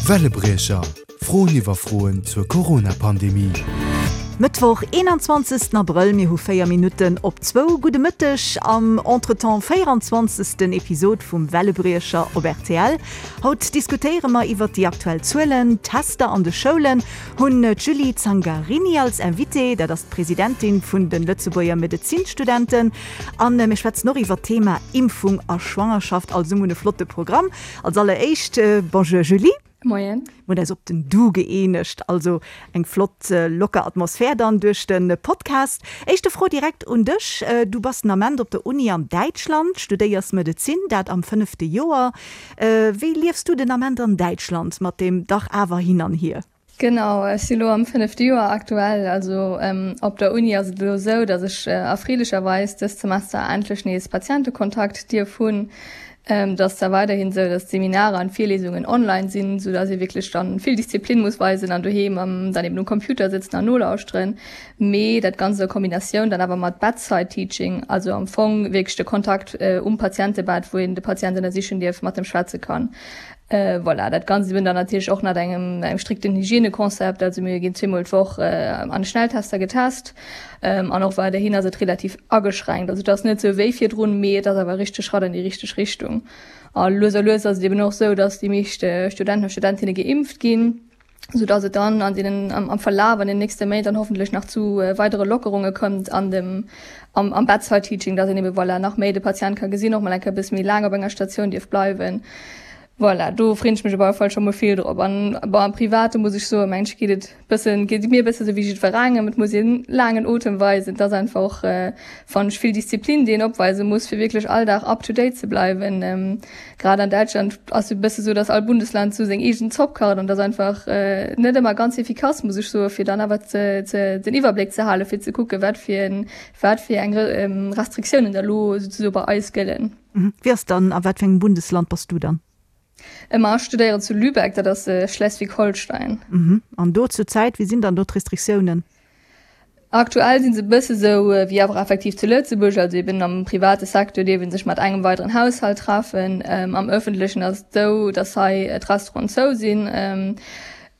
Wellebriecher, Froen iwwer Froen zur Corona-Pandemie. Mëttwoch, 21 Abrëll, mir hu 4 Minutten op zwou. Gudde Mëtteg am Entretemps 24. Episod vum Wellebriecher op rtl. Haut diskutéiere mer iwwert déi aktuell Zuelen, d'Tester an de Schoulen, hunn d'Julie Zangarini als Invitée, dat ass d'Presidentin vun de Lëtzebuerger Medezinstudenten. An mir schwätzen och iwwert d'Thema Impfung a Schwangerschaft. Also mir hunn e flotte Programm. Als alleréischt, Bonjour Julie. Moien. Mir hunn eis op den Du gëeenegt, also eng flott locker Atmosphär dann duerch de Podcast. Éischte Fro direkt un dech, Du bass den Ament op der Uni an Däitschland, studéiers Medezin, dat am fënnefte Joer. Wéi liefs du den Ament an Däitschland mat deem dach awer hin an hier? Genau, ech si lo am fënnefte Joer aktuell. Also op der Uni ass et elo esou, datt ech erfreelecherweis dëst Semester endlech nees Patientekontakt dierf hunn. Et ass zwar weiderhin esou, datt d'Seminarer an d'Virlesungen online sinn, sou datt ee wierklech dann vill Disziplin muss weisen an doheem dann eben um Computer sëtzen an nolauschteren, mee dat Ganzt a Kombinatioun dann awer mat Bedside Teaching, also am Fong wierklech de Kontakt um Patientebett, wou een de Patient ënnersichen dierf, mat em schwätze kann. Voilà, dat Ganzt eben dann natierlech och nach engem engem strikten Hygienekonzept. Also mir ginn zweemol d'Woch an de Schnelltester getest an och weiderhin ass et relativ ageschränkt. Also et ass net sou wéi virdrun, mee et ass awer e richtege Schratt an déi richteg Richtung. A lues a lues ass et eben och sou, datt déi meescht Studenten a Studentinne geimpft ginn. sou dass et dann an deenen am Verlaf an den nächste Méint dann hoffentlech nach zu weidere Lockerunge kënnt an dem am am Bedside Teaching, dass een ebe voilà nach méi de Patient ka gesinn, och mol eng Kéier e bësse méi laang op enger Statioun dierf bleiwen. Voilà, do freen ech mech op alle Fall scho mol vill drop. An bon am Private muss ech soen, mengen ech geet et bëssen geet et mir e bësse sou wéi jiddwerengem, et muss een laangen Otem weisen, et ass einfach och fannen ech vill Disziplin déi een opweise muss fir wierklech all Dag up to date ze bleiwen. Grad an Däitschland ass e bësse sou, datt all Bundesland sou seng eegen Zopp kacht an dat ass einfach net ëmmer ganz efficace, muss ech soen, fir dann awer ze, ze, den Iwwerbléck ze halen, fir ze kucken, wat fir en, wat fir eng Restriktiounen da lo souzesoe bei eis gëllen. Wéi ass dann, a wat fir engem Bundesland bass du dann? Ma ech studéieren zu Lübeck, dat ass Schleswig-Holstein. An do zur Zäit, wéi sinn dann do d'Restriktiounen? Aktuell si se e bësse sou wéi awer effektiv zu Lëtzebuerg, also eben am private Secteur dierf ee sech mat engem weideren Haushalt treffen. Am ëffentlechen ass et esou, datt hei d'Restauranten zou sinn.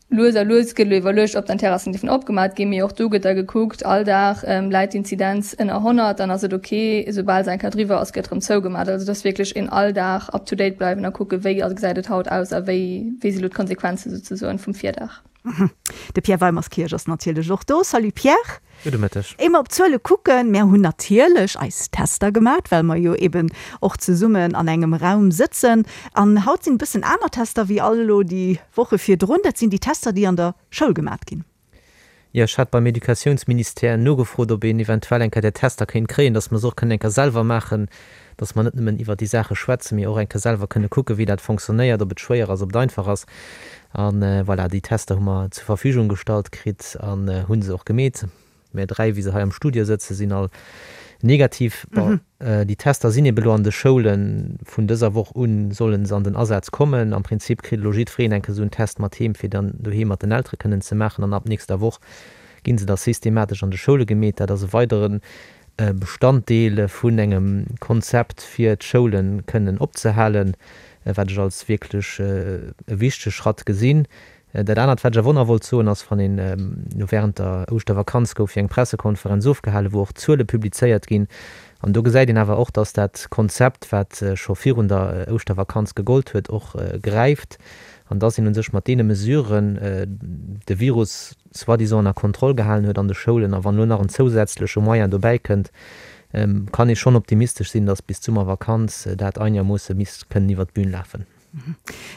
Lues a lues gëtt elo iwwerluecht, ob dann d'Terrassen dierfen opgemat ginn, mee och do gëtt da gekuckt, all Dag läit d'Inzidenz ënner 100, dann ass et ok, esoubal se eng Kéier driwwer ass, gëtt erëm zougemat. Also et ass wierklech een all Dag up to date bleiwen a kucke wéi gesäit et haut aus a wéi wéi si elo d'Konsequenze souzesoen vum Virdag. De Pierre Weimerskirch ass natierlech och do. Salut Pierre. Gudde Mëtteg. Éier mer op d'Zuele kucken, mär hunn natierlech eis Tester gemat, well mer jo eben och zesummen an engem Raum sëtzen. An haut sinn e bëssen aner Tester wéi all elo déi Woche virdrun. Dat sinn déi Tester, déi an der Schoul gemat ginn. Jo, ech hat beim Educatiounsministère nogefrot, ob een eventuell eng Kéier där Tester kéint kréien, dass mer se och kënnen eng Kéier selwer maachen, dass mer net nëmmen iwwert déi Saache schwätzen, mee och eng Kéier selwer kënne kucken, wéi dat fonctionnéiert, ob et schwéier ass, ob et einfach ass. A voilà, déi Tester hu mer zur Verfügung gestallt kritt an hu se och gemeet. Mär 3, wéi se hei am Studio sëtzen, sinn all negativ. Bon, déi Tester sinn ebe lo an de Schoulen. Vun dëser Woch u solle se an den Asaz kommen. Am Prinzip kritt elo jiddwereen eng Kéier esou en Test mat heem, fir dann doheem mat den Eltere kënnen ze maachen. An ab nächster Woch gi se da systematesch an de Schoule gemeet. Dat ass e weidere Bestanddeel vun engem Konzept, fir d'Schoule kënnen opzehalen, wat ech als wierklech e wichtege Schratt gesinn. Dat anert, wat ech awer och nach wollt soen, ass, wann een, elo während der Ouschtervakanz gouf jo eng Pressekonferenz ofgehalen, wou och Zuele publizéiert ginn, an do gesäit een awer och, dass dat Konzept, wat scho virun der Ouschtervakanz gegollt huet, och gräift an dass een u sech mat deene Mesuren de Virus soi-disant ënner Kontroll gehalen huet an de Schoulen. A wann elo nach en zousätzleche Moyen dobäi kënnt, kann ee schonn optimistesch sinn, dass bis d'Summervakanz dat einermoosse misst kënnen iwwert d'Bün lafen.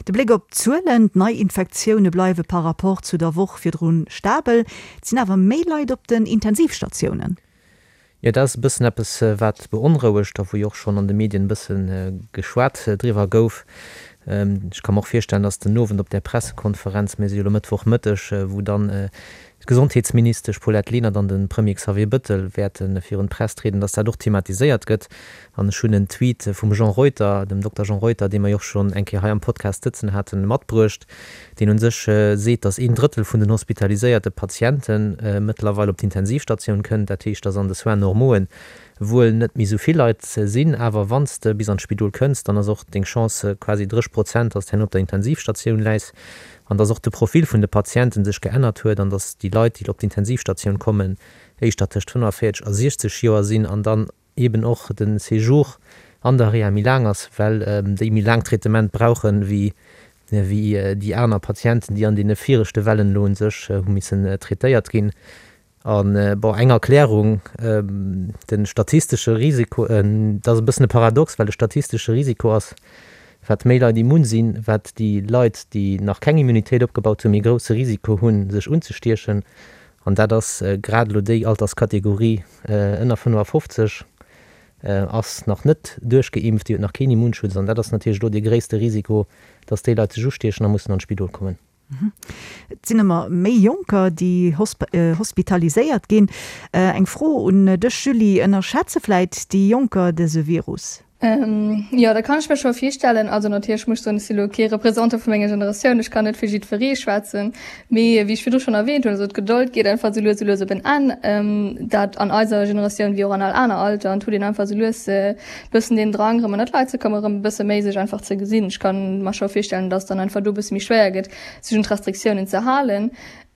De Bléck op d'Zuelen, D'Neiinfektioune bleiwe par Rapport zu der Woch virdru stabel. Et sinn awer méi Leit op den Intensivstatiounen. Jo, dat ass e bëssen eppes, wat beonrouegt a wou jo och schonn an de Medien e bësse geschwat driwwer gouf. Ech ka mer och virstellen, datt den Owend op där Pressekonferenz, mir si jo elo Mëttwochmëtteg, wou dann d'Gesondheetsministesch Paulette Lenert an de Premier Xavier Bëttel wäerte virun d'Press trieden, datt dat och thematiséiert gëtt. An ech hunn en Tweet vum Jean Reuter, dem Dokter Jean Reuter, dee mer jo och schonn eng Kéier hei am Podcast sëtzen haten, matbruecht, deen u sech seet, datt een Drëttel vun den hospitaliséierte Patiente mëttlerweil op d'Intensivstatioun kënnt. Dat heescht, datt an de Soins normauxen. Wuel net méi esou vill Leit sinn, awer wann s de bis an d'Spidol kënns, dann ass och deng Chance quasi 30 Prozent, dass de herno op der Intensivstatioun läis an dass och de Profil vun de Patienten sech geännert huet an dass déi Leit, déi op d'Intensivstatioun kommen, éischter tëscht 45 a 60 Joer sinn an dann eben och de Séjour an der Reha méi laang ass, well déi méi laang Traitement brauchen, wéi déi aner Patienten, déi an deene viregte Wellen elo u sech hu missen traitéiert ginn. An, bon, eng Erklärung, de statistesche Risiko, dat ass e bëssen e Paradox, well de statistesche Risiko ass, wat méi Leit immun sinn, wat déi Leit, déi nach keng Immunitéit opgebaut hunn, méi grousse Risiko hunn, sech unzestiechen. An dat ass grad elo déi Alterskategorie ënner 55 ass nach net duerchgeimpft, déi huet nach keen Immunschutz. An dat ass natierlech elo dee gréisste Risiko, dass déi Leit sech ustiechen a mussen an d'Spidol kommen. Et sinn ëmmer méi Jonker, déi hospitaliséiert ginn. Eng Fro un dech, Julie, Ënnerschätze vläit déi Jonker dëse Virus? Jo, dat kann ech mir scho virstellen. Also natierlech muss ech soen, ech si lo kee Représentant vu menger Generatioun, ech kann net fir jiddweree schwätzen. Mee wéi ech virdru schonn erwähnt hunn, also d'Gedold geet einfach esou lues esou lues op en Enn. Dat an eiser Generatioun wéi och an all aner Alter. An et huet een einfach esou lues e bëssen deen Drang erëm ënnert d'Leit ze kommen, erëm e bësse méi sech einfach ze gesinn. Ech kann mer scho virstellen, dass dann einfach do e bësse méi schwéier gëtt, sech un d'Restriktiounen ze halen.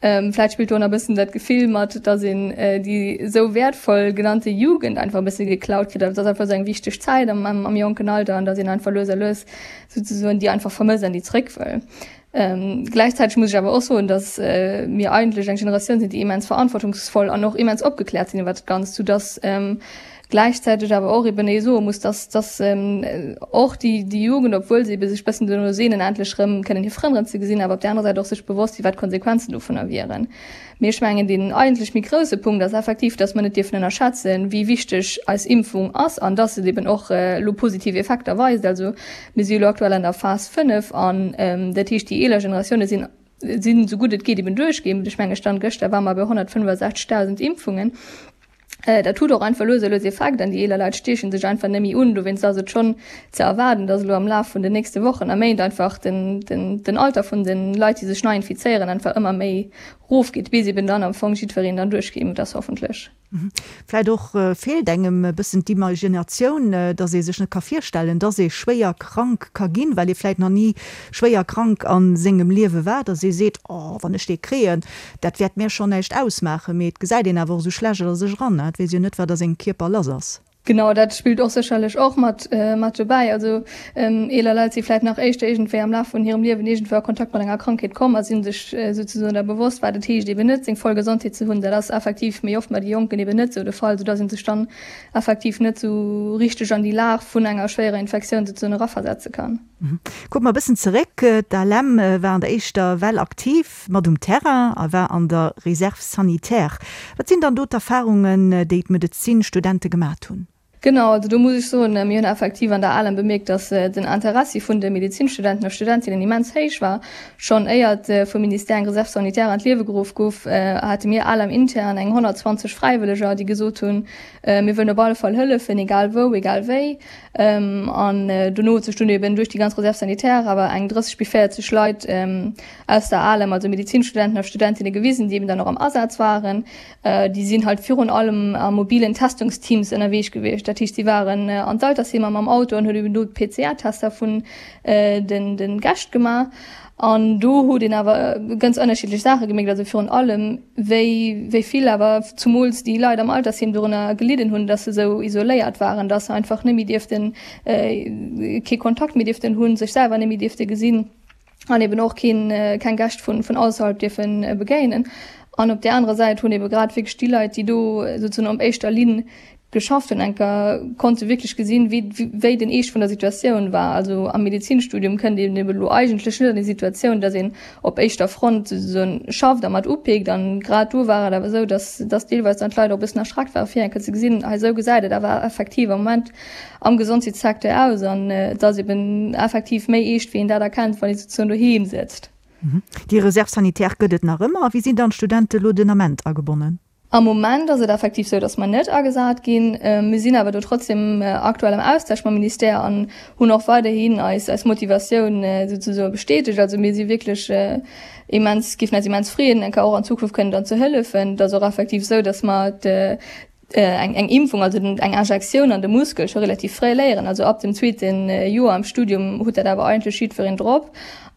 Vläicht spillt do nach e bëssen dat Gefill mat, dass een déi esou wäertvoll genannte Jugend einfach e bësse geklaut kritt. Also et ass einfach esou eng wichteg Zäit am, am jonken Alter an dass een einfach lues a lues souzesoen déi einfach vermësst an déi zréck wëll. Gläichzäiteg muss ech awer och soen, dass mir eigentlech eng Generatioun sinn, déi immens verantwortungsvoll an och immens opgekläert sinn iwwert dat Ganzt, soudass gläichzäiteg awer och eben ee soe muss, dass dass och déi déi Jugend, obwuel se ebe sech bëssen dono sehnen, endlech erëm kënnen hir Frënn erëm ze gesinn, awer op där anerer Säit och sech bewosst sinn, wat d'Konsequenzen dovunner wieren. Mee ech mengen, deen eigentlech méi grousse Punkt ass effektiv, dass mer net dierfen ënnerschätzen, wéi wichteg eis Impfung ass an dass et eben och elo positiv Effekter weist. Also mir si jo elo aktuell an der Phas 5 an dat heescht, déi eeler Generatioune sinn sinn esou gutt et geet eben duerchgeimpft. Ech menge Stand gëschter ware mer bei 165.000 Impfungen. Dat huet och einfach lues a lues Effekt an déi eeler Leit stiechen sech einfach net méi un. Dowéinst ass et schonn ze erwaarden, datt elo am Laf vun den nächste Wochen a Méint einfach den, den, den Alter vun de Leit, déi sech nei infizéieren, einfach ëmmer méi rofgeet, bis eben dann am Fong jiddwereen dann duerchgeimpft ass, hoffentlech. Vläit och feelt engem e bëssen d'Imaginatioun, datt ee sech net ka virstellen, datt ee schwéier krank ka ginn, well ee vläit nach ni schwéier krank a sengem Liewe war, datt ee seet, Oh, wann ech dee kréien, Dat wäert mär schonn näischt ausmaachen, mee et gesäit een awer och esou schlecht a sech eran, et weess jo net, wat a sengem Kierper lass ass. Genau, dat spillt och sécherlech och mat mat dobäi. Also eeler Leit si vläit nach éischter iergendwéi am Laf vun hirem Liewen iergendwou a Kontakt mat enger Krankheet komm a si sech souzesoen da bewosst, wat et heescht eben net seng voll Gesondheet ze hunn. Dat ass effektiv méi oft bei de Jonken eben net esou de Fall, soudass ee sech dann effektiv net esou richteg an déi Lag vun enger schwéierer Infektioun souzesoen eraversetze kann. Kucke mer e bëssen zeréck, D'ALEM war an der éischter Well aktiv mat um Terrain a war an der Réserve sanitaire. Wat sinn dann do d'Erfarungen, déi d'Medezinstudente gemat hunn? Genau, also do muss ech soen, mir hunn effektiv an der ALEM bemierkt, dass den Interessi vun de Medezinstudenten a studentinnen immens héich war. Schonn éiert vum Ministère eng Réserve sanitaire an d'Liewe geruff gouf, hate mir ALEM intern eng 120 Fräiwëlleger, déi gesot hunn, mir wëllen op alle Fall hëllefen, egal wou, egal wéi. An dono huet sech dunn eben duerch déi ganz Réserve sanitaire awer eng 30 bis 40 Leit aus der ALEM, also Medizinstudenten a Studentinne gewisen, déi eben dann och am Asaz waren. Déi sinn halt virun allem a mobilen Testungsteams ënnerweesch gewiescht. Dat heescht, si waren an d'Altersheemer mam Auto an hunn eben do d'PCR-Tester vun den Gäscht gemaach. An do huet een awer ganz ënnerschiddlech Saache gemierkt, also virun allem wéi wéi vill awer zumools déi Leit am Altersheem dorënner gelidden hunn, dass se esou isoléiert waren, dass se einfach net méi dierften, kee Kontakt méi dierften hunn, sech selwer net méi dierfte gesinn an eben och keen, keng Gäscht vun vun ausserhalb dierfe begéinen. An op där anerer Säit hunn ebe grad wierklech déi Leit, déi do souzesoen op éischter Linn geschafft hunn, enker konnte wierklech gesinn, wéi wéi den Eescht vun der Situatioun war. Also am Medezinstudium kënnt een eben elo eigentlech net an déi Situatioun, datt een op éischter Front souzesoen schafft a mat upeekt. An grad do war et awer esou, datt datt deelweis dann d'Leit och e bëssen erschreckt ware fir enker ze gesinn, hei esou gesäit et awer effektiv am Moment am Gesondheetssecteur aus an et ass eben effektiv méi eescht, wéi een dat erkennt, wann ee souzesoen doheem sëtzt. Déi Reserve sanitaire gëtt et nach ëmmer. A wéi sinn dann d'Studente lo den Ament agebonnen? Am Moment ass et effektiv sou, datt mer net agesat ginn. Mir sinn awer do trotzdem aktuell am Austausch mam Ministère an hunn och weiderhin eis eis Motivatioun souzesoe bestätegt. Also mir si wierklech immens, géifen eis immens freeën, enker och an Zukunft kënnen dann ze hëllefen. Et ass och effektiv sou, datt mer. Eng eng Impfung, also den eng Injektioun an de Muskel scho relativ fréi léieren. Also ab dem zweete Joer am Studium huet dat awer eigentlech jiddwereen drop.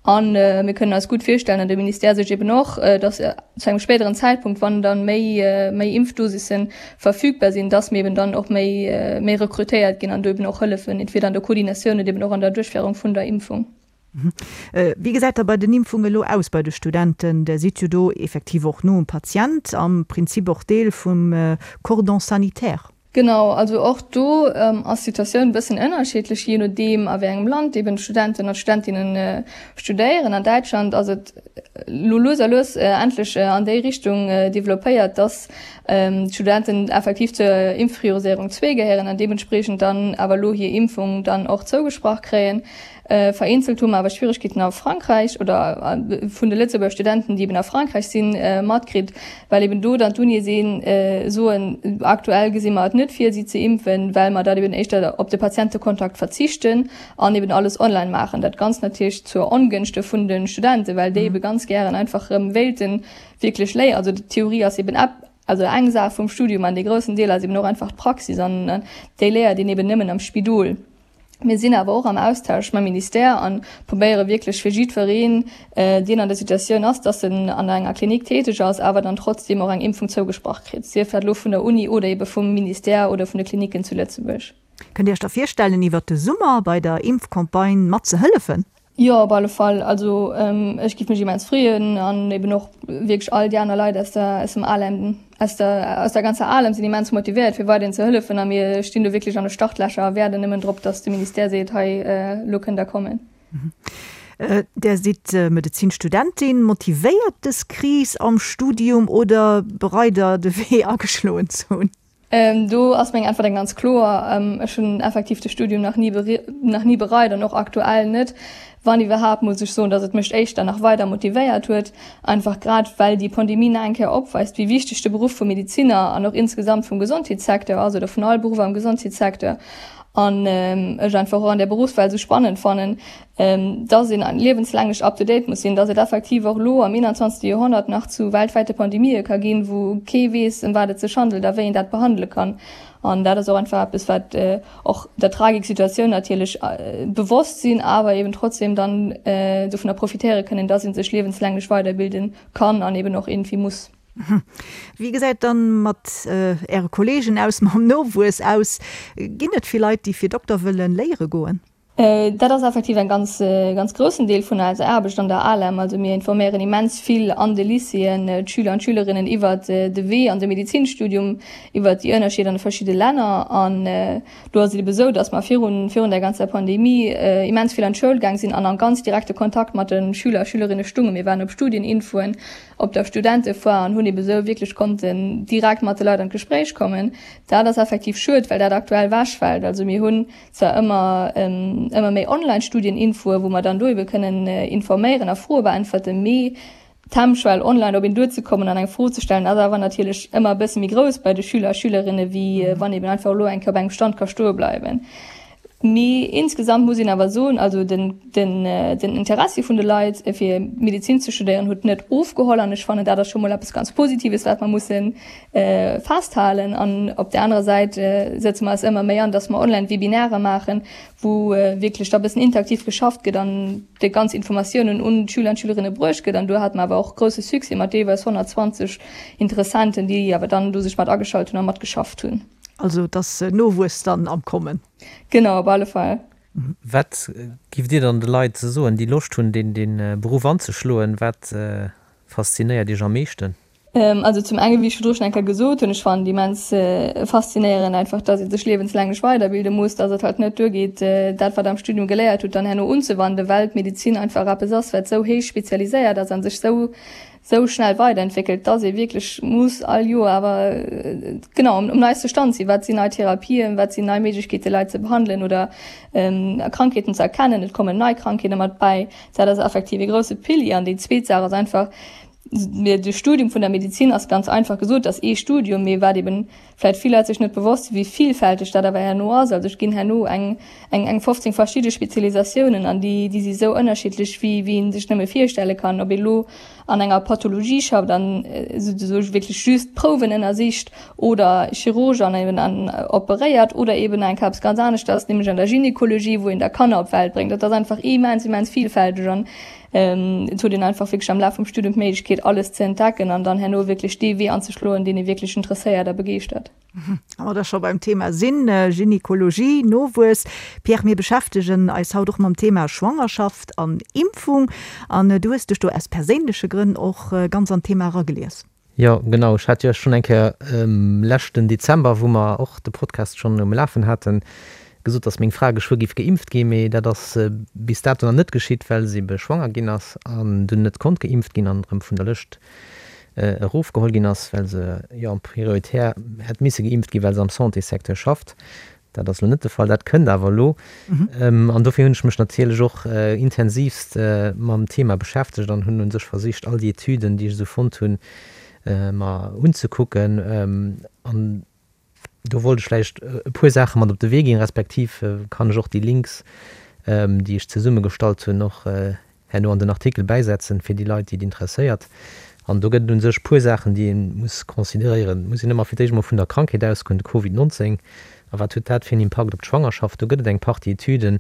A mir kënnen eis gutt virstellen, an de Ministère sech eben och, datt zu engem spéideren Zäitpunkt, wann dann méi méi Impfdosisse verfügbar sinn, datt mir eben dann och méi méi rekrutéiert ginn an do eben och hëllefen, entweder an der Koordinatioun oder eben och an der Duerchféierung vun der Impfung. Wéi gesäit da bei den Impfunge elo aus bei de Studenten? Der sidd jo do effektiv och no um Patient, am Prinzip och Deel vum Cordon sanitaire. Genau, also och do ass d'Situatioun e bëssen ënnerschiddlech, jee nodeem a wéi engem Land eben d'Studenten an d'Studentinne studéieren. An Däitschland ass et elo lues a lues endlech an déi Richtung developpéiert, dass d'Studenten effektiv zur Impfprioriséierung zwee gehéieren an deementspriechend dann awer elo hir Impfung dann och zougesprach kréien. Vereenzelt hu mer awer Schwieregkeeten a Frankräich oder vun de Lëtzebuerger Studenten, déi eben a Frankräich sinn, matkritt, well eben do dann d'Unie sinn, soen, aktuell gesi mer et net vir, si ze impfen, well mer dat eben éischter op de Patientekontakt verzichten an eben alles online maachen. Dat Ganzt natierlech zur Ongënschte vun de Studenten, well déi ebe ganz gären einfach erëm wéilte wierklech léieren. Also d'Theorie ass eben also eng Saach vum Studium an dee groussen Deel ass eben och einfach d'Praxis an déi léiert een eben nëmmen am Spidol. Mir sinn awer och am Austausch mam Ministère a probéiere wierklech fir jiddwereen, deen an der Situatioun ass, dass en an enger Klinik täteg ass, awer dann trotzdeem och eng Impfung zougesprach kritt, sief dat elo vun der Uni oder ebe vum Ministère oder vun de Klinicken zu Lëtzebuerg. Kënnt Dir Iech da virstellen, iwwert de Summer bei der Impfcampagne mat ze hëllefen? Jo, op alle Fall. Also ech giff mech immens freeën an eben och wierklech all déi aner Leit aus der aus dem ALEM, aus der aus der ganzer ALEM sinn immens motivéiert fir weiderhin ze hëllefen a mir stinn do wierklech an de Startlächer a waarden nëmmen drop, datt de Ministère seet, hei elo kënnt der kommen. Där sidd Medezinstudentin. Motivéiert dës Kris am Studium oder bereit der de Wee ageschloen ze hunn? Do ass meng Äntwert eng ganz kloer, Ech hunn effektiv de Studium nach ni nach ni bereit an och aktuell net. Wann iwwerhaapt, muss ech soen, datt et mech éischter nach weider motivéiert huet, einfach grad well déi Pandemie nach eng Kéier opweist, wéi wichteg de Beruff vum Medeziner an och insgesamt vum Gesondheetssecteur ass oder vun all Beruff am Gesondheetssecteur. An ech einfach och an där Beruffswelt esou spannend fannen, dass een liewenslänglech up to date muss sinn, dass et effektiv och elo am 21. Joerhonnert nach zu weltwäite Pandemië ka ginn, wou kee weess, ëm wat et sech handelt a wéi een dat behandele kann. An dat ass och einfach eppes, wat och der Tragik Situatioun natierlech bewosst sinn, awer eben trotzdem dann dovunner profitéiere kënnen, dass ee sech liewenslänglech weiderbilde kann an eben och iergendwéi muss. Wéi gesäit dann mat Äre Kollegen aus, mam Nowuess aus? Ginn et vill Leit, déi fir Dokter wëllen léiere goen? Dat ass effektiv en ganz, ganz groussen Deel vun eiser Aarbecht an der ALEM. Also mir informéieren immens vill an de Lycéeën d'Schüler an d'Schülerinnen iwwert de Wee an de Medezinstudium, iwwert déi Ënnerscheeder an de verschidde Länner. An do ass et ebe sou, datt mer virun, virun der ganzer Pandemie immens vill an d'Schoul gaang sinn an a ganz direkte Kontakt mat de Schüler a Schülerinne stungen. Mir waren op Studieninfoen, op der Studentefoire an hunn ebe sou wierklech konnten direkt mat de Leit an d'Gespréich kommen. Dat ass effektiv schued, well dat aktuell wechfält. Also mir hunn zwar ëmmer ëmmer méi Online-Studieninfoe wou mer dann do ebe kënnen informéieren a Froe beäntwerten, mee d'Hemmschwell online op een duerzekommen an eng Fro ze stellen ass awer natierlech ëmmer e bësse méi grouss bei de Schüler a Schülerinne wéi wann eben einfach elo eng Kéier op engem Stand ka stoe bleiwen. Mee insgesamt muss een awer soen, also den den den Interessi vun de Leit fir Medezin ze studéieren huet net ofgeholl an ech fannen dat ass scho mol eppes ganz Positives wat mer mussen festhalen. An op där anerer Säit sëtze mer eis ëmmer méi an, dass mer Online-Webinare maachen, wou wierklech da e bëssen interaktiv geschafft gëtt an déi ganz Informatiounen un d'Schüler an d'Schülerinne bruecht gëtt. An do hate mer awer och grousse Succès mat deelweis 120 Interessenten, déi awer dann do sech mat ageschalt hunn a matgeschafft hunn. Also et ass Nowuess dann am Kommen. Genau, op alle Fall. Wat giff Dir dann de Leit soen, déi Loscht hunn, dee Beruff anzeschloen? Wat faszinéiert Iech am meeschten? Also zum enge wéi ech virdru schonn eng Kéier gesot hunn, ech fannen et immens faszinéierend einfach, datt ee sech liewenslänglech weiderbilde muss, datt et halt net duergeet, dat wat am Studium geléiert hutt, dann herno unzewanden, well d'Medezin einfach eppes ass, wat esou héich spezialiséiert ass a sech esou esou schnell weiderentwéckelt, datt ee wierklech muss all Joer awer genau um neiste Stand sinn, wat sinn nei Therapien, wat sinn nei Méiglechkeete Leit ze behandelen oder Krankheeten ze erkennen, et kommen nei Krankheete mat bäi. Dat ass effektiv ee grousse Pilier. An déi zweet Saach ass einfach, De Studium vun der Medizin ass ganz einfach gesot, ass ee Studium, mee wat eben vläit vill Leit sech net bewosst sinn, wéi villfälteg dat awer herno ass. Also et ginn herno eng eng 15 verschidde Spezialisatiounen an déi déi si sou ënnerschiddlech wéi wéi een sech nëmme virstelle kann. Ob ee lo. an enger Pathologie schafft an souzesoe wierklech just Prouwen ënnersicht oder Chirurg an eben an operéiert oder eben eng Kéier eppes ganz aneschters, nämlech an der Gynekologie, wou een da Kanner op d'Welt bréngt. Dat ass einfach immens, immens vielfälteg an et huet een einfach wierklech am Laf vum Studium d'Méiglechkeet, alles ze entdecken an dann herno wierklech dee Wee anzeschloen, deen ee wierklech interesséiert a begeeschtert. Wa mer da scho beim Thema sinn, Gynekologie, Nowuess, Pierre, mir beschäftegen eis haut och mam Thema Schwangerschaft an Impfung an du hues dech do aus perséinleche Grënn och ganz an d'Thema eragelies. Jo, genau. Ech hat jo schonn eng Kéier leschten Dezember, wou mer och de Podcast schonn um Lafen haten, gesot, datt meng Fra geschwë géif geimpft ginn. Mee dat ass bis dato nach net geschitt, well se ebe schwanger ginn ass an dunn net konnt geimpft ginn an erëm vun der Lëscht erofgeholl ginn ass, well se jo prioritär hätt misse geimpft ginn, well se am Santéssecteur schafft. Dat ass elo net de Fall, dat kënnt awer elo. An dofir hunn ech mech natierlech och intensivst mam Thema beschäftegt an hunn u sech versicht, all déi Etüden, déi ech esou fonnt hunn, mer unzekucken. An do wollt ech vläicht e puer Saache mat op de Wee ginn, respektiv kann ech och déi Links, déi ech zesummegestallt hunn, och herno an den Artikel bäisetzen, fir déi Leit, déi et interesséiert. An do gëtt et u sech puer Saachen, déi ee muss consideréieren. Et muss een ëmmer fir d'éischt emol vun der Krankheet ausgoen, de Covid 19. A wat huet dat fir en Impakt op d'Schwangerschaft? Do gëtt et eng Partie Etüden,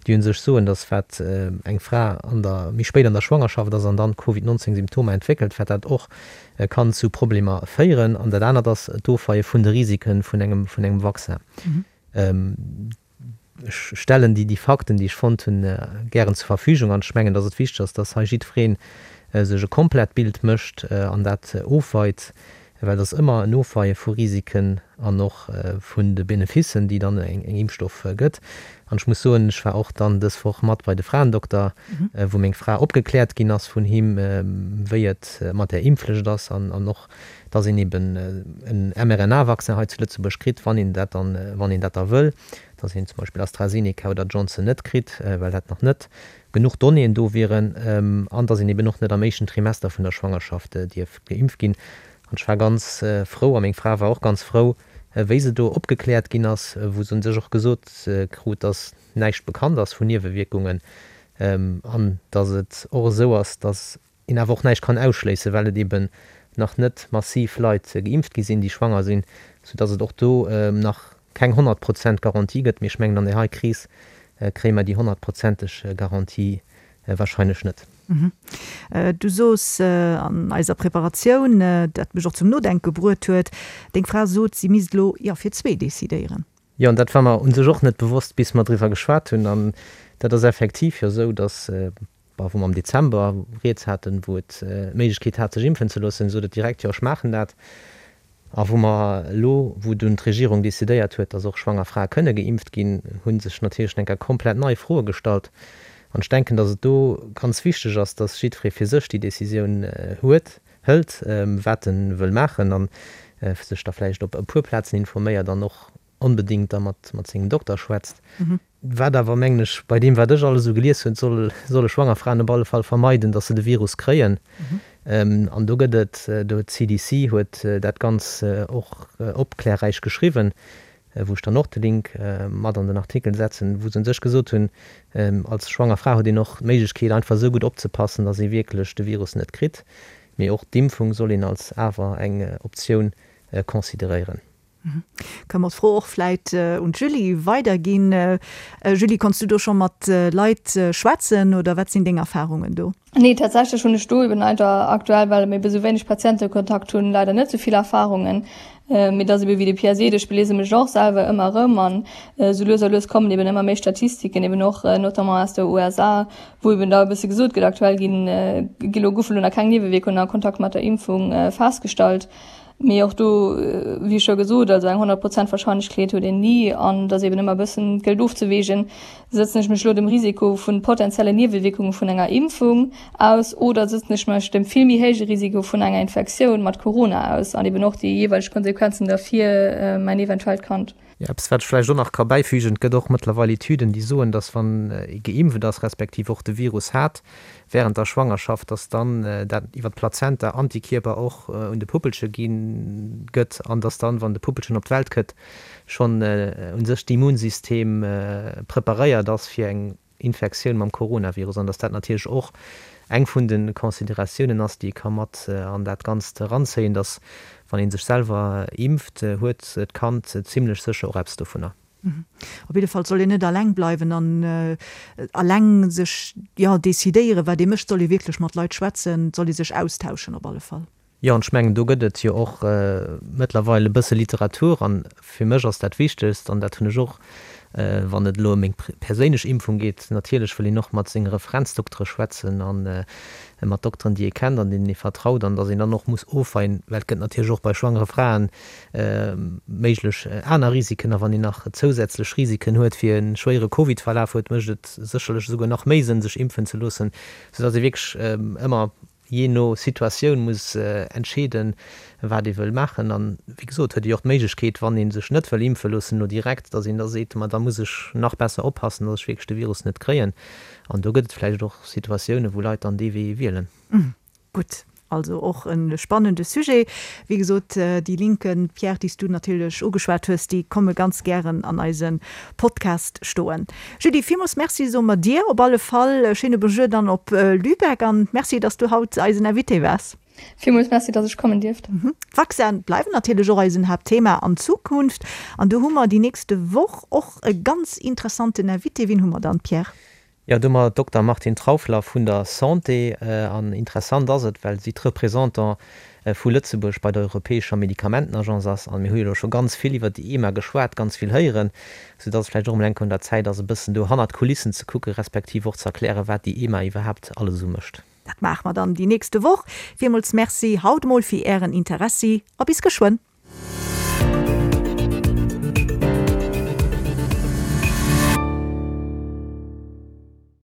déi u sech soen, datt wat eng Fra an der, méi spéit an der Schwangerschaft ass an dann Covid 19 Symptomer entwéckelt, wat dat och kann zu Problemer féieren. An dat anert ass d'Ofweie vun de Risike vun engem, vun engem Vaccin. Ech stellen déi Fakten, déi ech fonnt hunn, gären zur Verfügung an ech mengen, dass et wichteg ass, dass hei jiddweree sech e komplett Bild mécht an dat ofweit, well et ass ëmmer en Ofweie vu Risiken an och vun de Beneficen, déi dann eng Impfstoff gëtt. An ech muss soen, ech war och dann dës Woch mat bei de Fraendokter, wou meng Fra opgekläert ginn ass vun him, wéi et mat där Impfflicht ass an och, dass een eben en mRNA-Vaccin hei zu Lëtzebuerg kritt, wann een dat dann, wann een dat da wëll, dass een zum Beispill AstraZeneca oder Johnson net kritt, well dat nach net genuch Donnéeën do wieren, an dass een eben och net am éischten Trimester vun der Schwangerschaft dierf geimpft ginn. An ech war ganz frou, a meng Fra war och ganz frou, wéi se do opgekläert ginn ass, wou se un sech och gesot krut, dass näischt bekannt ass vun Niewewierkungen an dass et och esou ass, dass een awer och näischt kann ausschléissen, well et eben nach net massiv Leit geimpft gi sinn, déi schwanger sinn, soudass et och do nach keng 100 Prozent Garantie gëtt. Mee ech mengen, an där hei Kris kréie mer déi honnertprozenteg Garantie wahrscheinlech net. Du soos an eiser Preparatioun, dat mech och zum Nodenke bruet huet, deng Fra sot, si misst elo, jo, fir zwee decidéieren. Jo, an dat war mer u sech och net bewosst, bis mer driwwer geschwat hunn. An dat ass effektiv jo esou, dass Bon, wou mer am Dezember rieds haten, wou et d'Méiglechkeet hat sech impfen ze loossen, sot et direkt, jo ech maachen dat. A wou mer elo, wou dunn d'Regierung decidéiert huet, datt och schwanger Frae kënne geimpft ginn, hu sech natierlech eng Kéier komplett nei Froe gestallt. An ech denken, datt et do ganz wichteg ass, datt jiddweree fir sech déi Decisioun huet, hëlt, wat e wëll maachen a sech da vläicht op e puer Plazen informéiert an och onbedéngt da mat sengem Dokter schwätzt. Wat awer, mengen ech, bei deem wat ech alles esou gelies hunn, soll, solle schwanger Fraen op alle Fall vermeiden, datt se de Virus kréien. An do gëtt et, do huet d'CDC huet dat ganz och opklärräich geschriwwen, wou ech dann och de Link mat an den Artikel setzen, wou se un sech gesot hunn, als schwanger Fra huet een och d'Méiglechkeet einfach esou gutt opzepassen, datt ee wierklech de Virus net kritt. Mee och d'Impfung soll een als awer eng Optioun consideréieren. Kënne mer d'Fro och vläit un d'Julie weiderginn. Julie, konns du do scho mat Leit schwätzen oder wat sinn deng Erfarungen do? Nee, tatsächlech hunn ech do eben leider aktuell, well mir ebe sou wéineg Patientekontakt hunn, leider net sou vill Erfarungen. Mee et ass ebe wéi de Pierre seet, ech beliese mech och selwer ëmmer erëm an esou lues a lues kommen eben ëmmer méi Statistiken, eben och notamment aus der USA, wou eben da e bësse gesot gëtt, aktuell ginn, gi lo, goufe lo nach keng Niewewierkungen a Kontakt mat der Impfung festgestallt. Mee och do, wéi scho gesot, also eng 100 Prozent Warscheinlechkeet huet een ni an et ass eben ëmmer e bëssen, et gëllt ofzeweegen, sëtzen ech mech elo dem Risiko vu potenziellen Niewewierkunge vun enger Impfung aus oder sëtzen ech mech dem vill méi héije Risiko vun enger Infektioun mat Corona aus an eben och déi jeeweileg Konsequenzen da fir mäin eventuellt Kand. Jo, eppes wat ech vläicht och nach ka bäifügen, Et gëtt och mëttlerweil Etüden, déi soen, datt wann ee geimpft ass, respektiv och de Virus hat während der Schwangerschaft, datt dann dat iwwer d'Plazenta Antikierper och un de Puppelche gi gëtt an datt dann, wann de Puppelchen op d'Welt këtt, schonn u sech d'Immunsystem preparéiert ass fir eng. Infektioun mam Coronavirus an dass dat natierlech och eng vun de Consideratiounen ass, déi ee ka mat an dat Ganzt eranzéien, dass wann ee sech selwer impft, huet d'Kand zimlech sécher och eppes dovunner. Op jidde Fall soll een net alleng bleiwen an alleng sech, jo, decidéieren, wat ee mécht. Soll ee wierklech mat Leit schwätzen, soll ee sech austauschen op alle Fall. Jo, an ech mengen, do gëtt et jo och mëttlerweil e bësse Literatur. An fir mech ass dat Wichtegst, an dat hunn ech och, wann et elo ëm meng perséinlech Impfung geet, natierlech wëll een och mat senge Referenzdoktere schwätzen a mat Dokteren, déi ee kennt an deenen ee vertraut, an datt een dann och muss ofweien, well et gëtt natierlech och bei schwangere Fraen méiglech aner Risiken. A wann een nach zousätzlech Risiken huet fir e schwéiere Covid-Verlaf huet, mécht et sécherlech esouguer nach méi Sënn, sech impfen ze loossen, soudatt ee wierklech ëmmer jee no Situatioun muss entscheeden, wat ee wëll maachen. An, wéi gesot, huet ee jo och d'Méiglechkeet, wann ee sech net wëll impfe loossen elo direkt, datt een da seet, ma da muss ech nach besser oppassen, datt ech wierklech de Virus net kréien. An do gëtt et vläicht och Situatiounen, wou Leit dann dee Wee wielen. Gutt, also och e spannende Sujet. Wéi gesot, déi Linken, Pierre, déi s du natierlech ugeschwat hues, déi komme ganz gären an eise Podcast stoen. Julie, villmools Merci soe mer dir op alle Fall. Schéine Bonjour dann op Lübeck an Merci, dass du haut eisen Invité waars. Villmools Merci, dass ech kommen dierft. D'Vaccine bleiwen natierlech och eisen Haaptthema an Zukunft an do hu mer déi nächste Woch och e ganz interessanten Invité. Wien hu mer dann, Pierre? Jo, do hu mer Dokter Martine Trauffler vun der Santé. An interessant ass et, well si d'Représentant vu Lëtzebuerg bei der Europäescher Medikamentenagence ass. An mir hu jo elo scho ganz vill iwwert déi EMA geschwat, ganz vill héieren, soudass et vläicht och emol eng Kéier un der Zäit ass, e bëssen do hannert d'Kulissen ze kucken, respektiv och ze erklären, wat déi EMA iwwerhaapt alles esou mécht. Dat maache mer dann déi nächste Woch. Villmools Merci haut emol fir Ären Interessi a bis geschwënn.